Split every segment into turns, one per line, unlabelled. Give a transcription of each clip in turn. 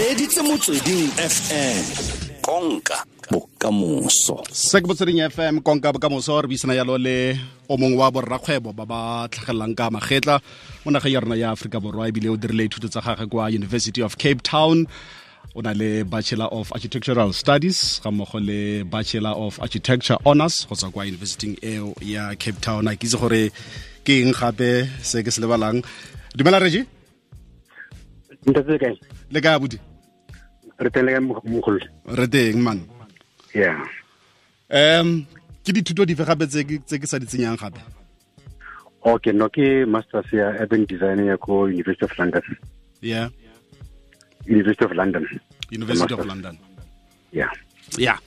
Reditse Motsweding FM, konka bokamoso.
Se ke Motsweding FM, konka bokamoso. Re buisana yalo le o mongwe wa borrakgwebo ba ba tlhagelelang ka magetla mo nageng ya rona ya Aforika Borwa, ebile o dirile dithuto tsa gagwe kwa University of Cape Town. O na le Bachelor of Architectural Studies ga mmogo le Bachelor of Architecture Honors go tswa kwa universityng eo ya Cape Town. A ke itse gore ke eng gape se ke se lebalang. Dumela, Regi.
Ntate, kae?
Le kae, abuti?
Re teng, le kae, mogolo?
Re teng, man. Ke dithuto dife gape tse ke sa di tsenyang gape?
Okay, no, ke masters ya urban design ya ko University of London. University of London.
University of
Masters.
London.
Yeah.
Ya,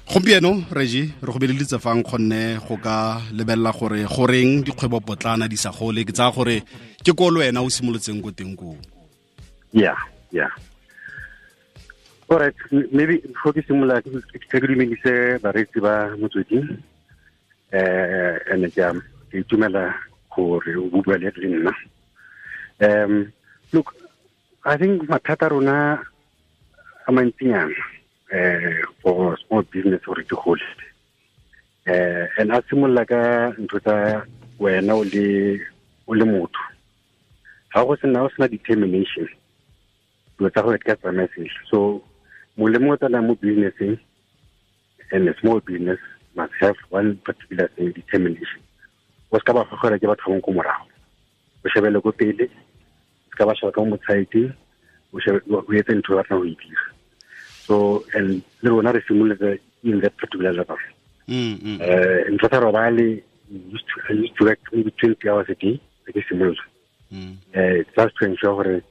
gompieno, Regi, re go beleditse fang kgonne go ka lebelela gore goreng dikgwebo potlana di sa gole. Ke tsaya gore ke ko le wena o simolotseng ko teng koo.
Yeah. All right, maybe before ke simolola, ke dumedise bareetsi ba Motsweding. And ke itumela gore o bua le nna. Look, I think mathata a rona a mantsinyana for small business gore di gole. And a simolola ka ntho tsa wena o le motho. Ha go sena o sena determination, dilo tsa gore di ka tsamaya sentle. So molemo o tsenang mo businesseng, and a small business must have one particular thing, determination. O se ka ba gogela ke batho ba bangwe ko morago, o shebele ko pele, o se ka ba sheba ka mo motshaeteng, o shebe o etse ntho o batlang go e dira. So and le rona re simolotse in that particular level. Ntho tsa robale, I used to work maybe 20 hours a day ke simolola, just to ensure gore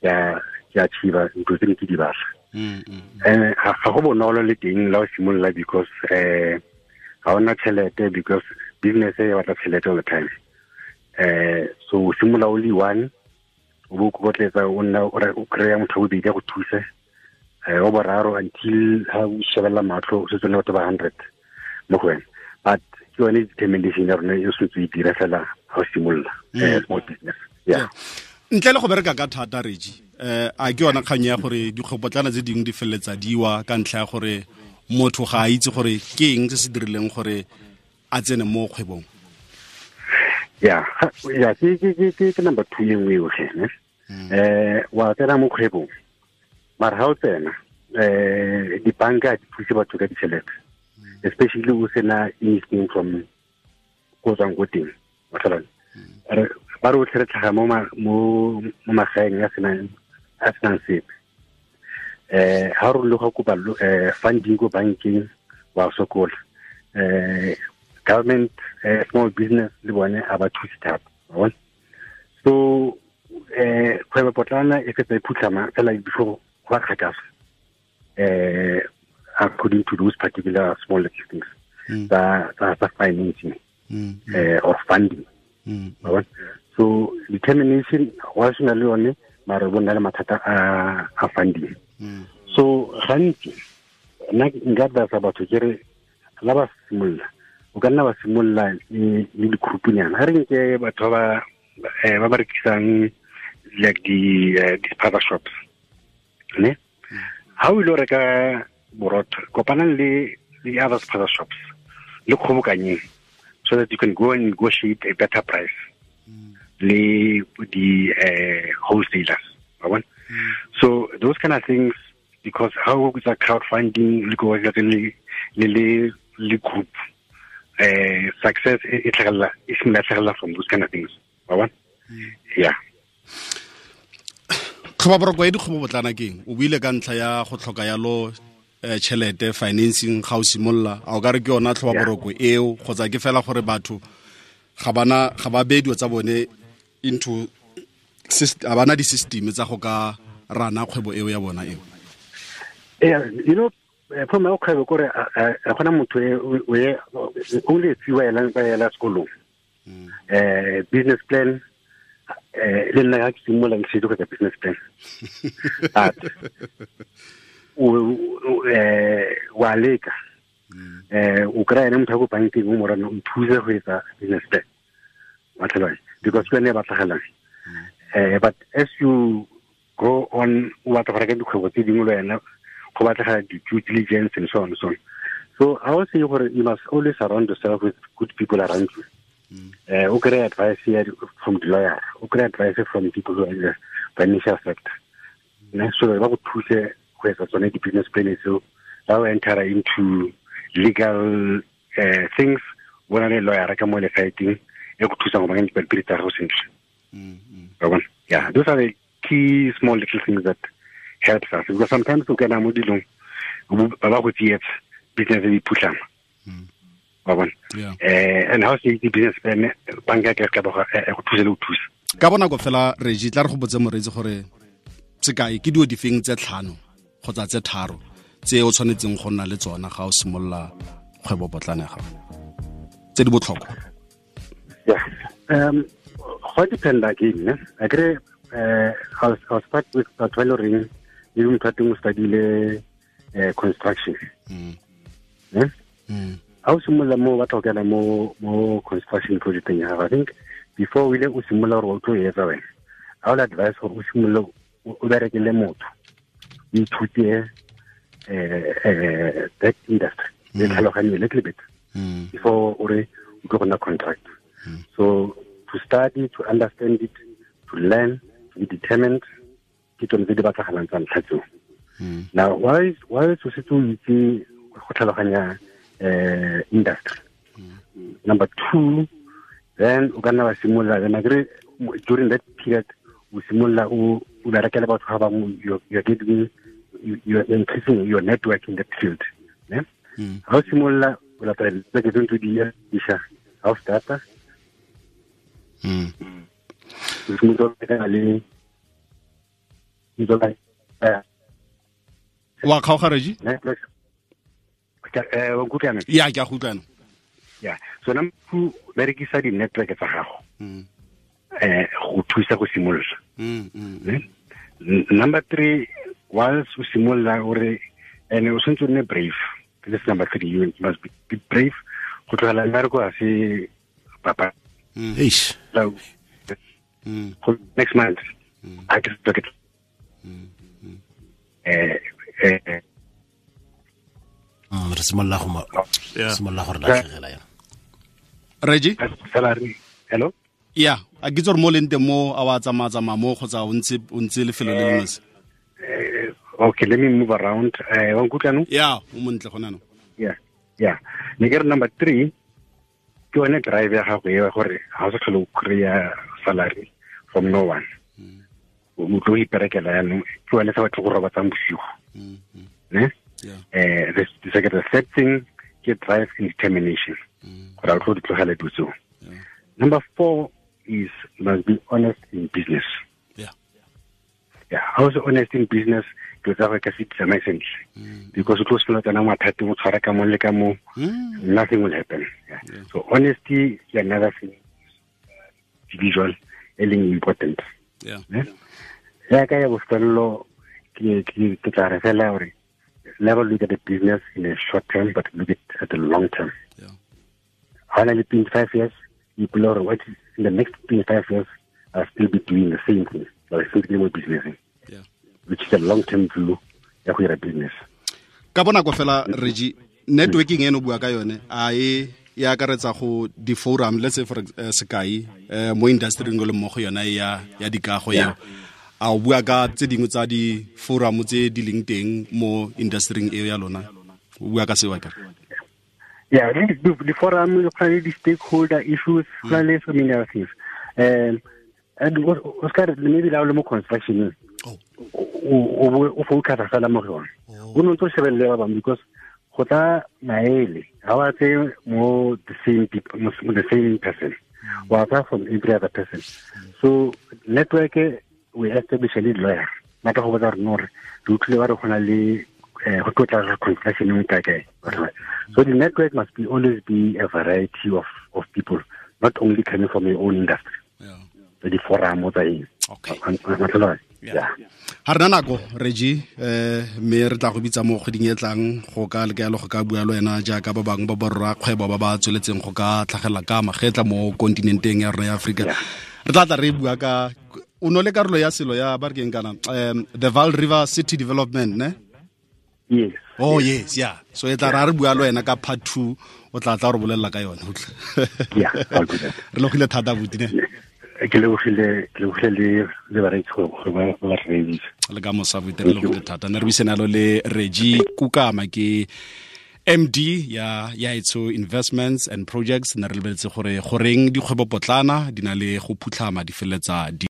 ke achieve ntho tse ne ke di batla. And ga go bonolo le teng la o simolola, because ga ona tšhelete, because business e batla tšhelete all the time. So o simolola o le one, o bo o kokotletsa, o nna o kry-a motho wa bobedi a go thuse, wa boraro, until ha o shebelela matlho o setse o le batho ba 100 mo go wena. But ke yone determination ya rona e sentse e dira fela ga o simolola small business, yeah.
Ntle le go bereka ka thata, Regi, a ke yona kgang ya gore dikgwebopotlana tse dingwe di feleletsa diwa ka ntlha ya gore motho ga a itse gore ke eng se se dirileng gore a tsene mo kgwebong?
Yeah, ke number two e nngwe eo gene. Wa tsena mo kgwebong, mara ha o tsena, dibanka di thuse batho ka ditšhelete, especially o sena anything from ko tswang ko teng. Wa tlhaloganya? Ba re otlhe re tlhaga mo magaeng a senang sepe. Ha re le go kopa funding ko bankeng, wa sokola. Government, small business le bone a ba thuse thata, wa bona? So kgwebo potlana e fetsa e phutlhama fela before go ba kgakala, according to those particular small little things tsa financing or funding, wa bona? So determination wa sena le yone, mara bo nna le mathata a funding. So gantsi nna nka advisa batho ke re la ba simolola, o ka nna ba simolola le di-group-nyana. Ga re nke batho ba rekisang like di spaza shops, ne ha o ile o reka borotho, kopanang le di other spaza shops, le kgobokanyeng, so that you can go and negotiate a better price le di wholesalers, wa bona? So those kind of things, because how o tsa crowdfunding le go le group, success e tlhagelela, e simolola tlhagelela from those kind of things, wa bona? Yeah.
Tlhoba boroko ya dikgwebo botlana keng? O buile ka ntlha ya go tlhoka yalo tšhelete, financing, ga o simolola. A o ka re ke yona tlhoba boroko eo, kgotsa ke fela gore batho ga bana ga ba beye dilo tsa bone into ga bana di-system tsa go ka rana kgwebo eo ya bona eo?
Yeah, from ya kgwebo kore a gona motho e only few ba ela sekolong business plan. Le nna ga ke simolola, ke setse go etsa business plan, but o wa leka, o kry ene motho ya ko bankeng, o morana o nthuse go etsa business plan, wa tlhaloganya? Because ke yone e batlagalang. But as you go on o batla go reka dikgwebo tse dingwe le wena, go batlega di-due diligence and so on and so on. So I would say gore you must always surround yourself with good people around you. O kry advice from the lawyer, o kry advice from people who are in the financial sector. Ne, so ba go thuse go etsa tsone di-business plan tseo, ba o enter into legal things, bona le lawyer ka mo lefaeteng e go thusang go baakanya dipampiri tsa gago sentle. Yeah, those are the key small little things that helps us, because sometimes o kena mo dilong ba ba go tsietsa, business e phutlhama. Wa bona? And how se itse business plan, banka ka ka ba go thusa le go thusa.
Ka bonako fela, Reggie, tla re go botse moreetsi gore sekai ke dio difeng tse 5 kgotsa tse 3 tse o tshwanetseng go nna le tsona ga o simolola kgwebo potlana ya gago, tse di botlhokwa.
Yeah. Go depend again, ne? Akere, I'll start with batho ba e le goreng maybe motho wa teng o study-ile construction. Ne? Ha o simolola mo, batla go kena mo construction project-eng ya gago, I think before o ile o simolola gore o tlo e etsa wena, I will advise gore o simolole o bereke le motho, o ithute that industry, le tlhaloganye a little bit before o re o tlo go nna contractor. So to study, to understand it, to learn, to be determined, ke tsone tse di batlagalang tsa ntlha tseo. Now, why o setse o itse go tlhaloganya industry? Number 2, then o ka nna wa simolola, then akere during that period o simolola o berekela batho ba bangwe, you're getting, you're increasing your network in that field. Ne? Ha o simolola o latela tse tse di isha, ha o starta, o simolola o le
wa kgaoga, Reggie?
Ya,
ke a go utlwana.
Yeah. So number 2, berekisa di-network tsa gago go thusa go simolola. Number 3, whilst o simolola ore, and o tshwanetse o nne brave. This is number 3, you must be brave. Go tlogela mmereko ga se papa.
Eish.
Next month, I just look at
re simolola go simolola gore latlhegela yana.
Reggie?
Salary. Hello?
Yeah, a ke tsore mo leng teng mo a wa tsamaya mo kgotsa o ntse lefelo le lengwe se.
Okay, let me move around. Wa nkutlwa no?
Yeah, o montle gona no.
Yeah. Yeah. Ne ke re number 3 ke yone drive ya gago e gore ha o sa tlhole o kry-a salary from no one. O tlo iperekela yanong, ke yone sa batho go robatsang bosigo. Ne?
Yeah.
The third thing ke drive and determination. Gore o tlo di tlogela dilo tseo. Number 4 is must be honest in business.
Yeah.
Yeah, how is honest in business? Dilo tsa go ka se tsamaye sentle. Because o tlo simolola tsena mathateng, o tshwara ka mo le ka mo, nothing will happen. Yeah.
Yeah.
So honesty is another thing, individual, e leng important.
Yeah.
Ya ka ya bofelelo ke tla re fela gore never look at the business in a short term, but look at the long term.
Yeah.
Ha na le 25 years, you pull out what in the next 25 years, I'll still be doing the same thing. I'll still be doing business.
Yeah.
Which is a long-term view ya go dira business.
Ka bonako fela, Reggie, networking eno bua ka yone, a e akaretsa go di-forum, let's say for sekai, mo industry le mo go yona ya dikago eo. A o bua ka tse dingwe tsa di-forum tse di leng teng mo industry eo ya lona? O bua ka seo akere?
Yeah, the forum, go na le di-stakeholder issues, go na le so many other things. And Oscar, maybe la o le mo construction, o focus fela mo go yone. O no ntse o shebelele ba bangwe because go tla maele, ha wa tse mo the same people, mo the same person. Wa tla from every other person. So network, we establish a lead lawyer. Mata go botsa re no re utlwile ba re go na le go tlotla construction e kae kae. So the network must be always be a variety of people, not only coming from your own industry.
Yeah.
The forum tsa eng.
Okay.
Yeah.
Ha re na nako, Reggie, mme re tla go bitsa mo kgweding e tlang go ka leka go ka bua le wena jaaka ba bangwe ba borra kgwebo ba ba tsweletseng go ka tlhagela ka magetla mo kontinenteng ya rona ya Afrika. Re tla tla re bua ka O no le karolo ya selo ya ba re keng kana, the Vaal River City Development, ne?
Yes.
Oh yes, yeah. So e tla ra re bua le wena ka part 2, o tla tla re bolelela ka yone.
Yeah, I'll do that.
Re logile thata buti ne.
Ke lebogile le bareetsi gore ba re reeditse.
Le ka mosa buti, re logile thata. Ne re buisana le Reggie Kukama, ke MD ya Yaetso Investments and Projects. Ne re lebeletse gore goreng dikgwebo potlana di na le go phutlhama di feletsa di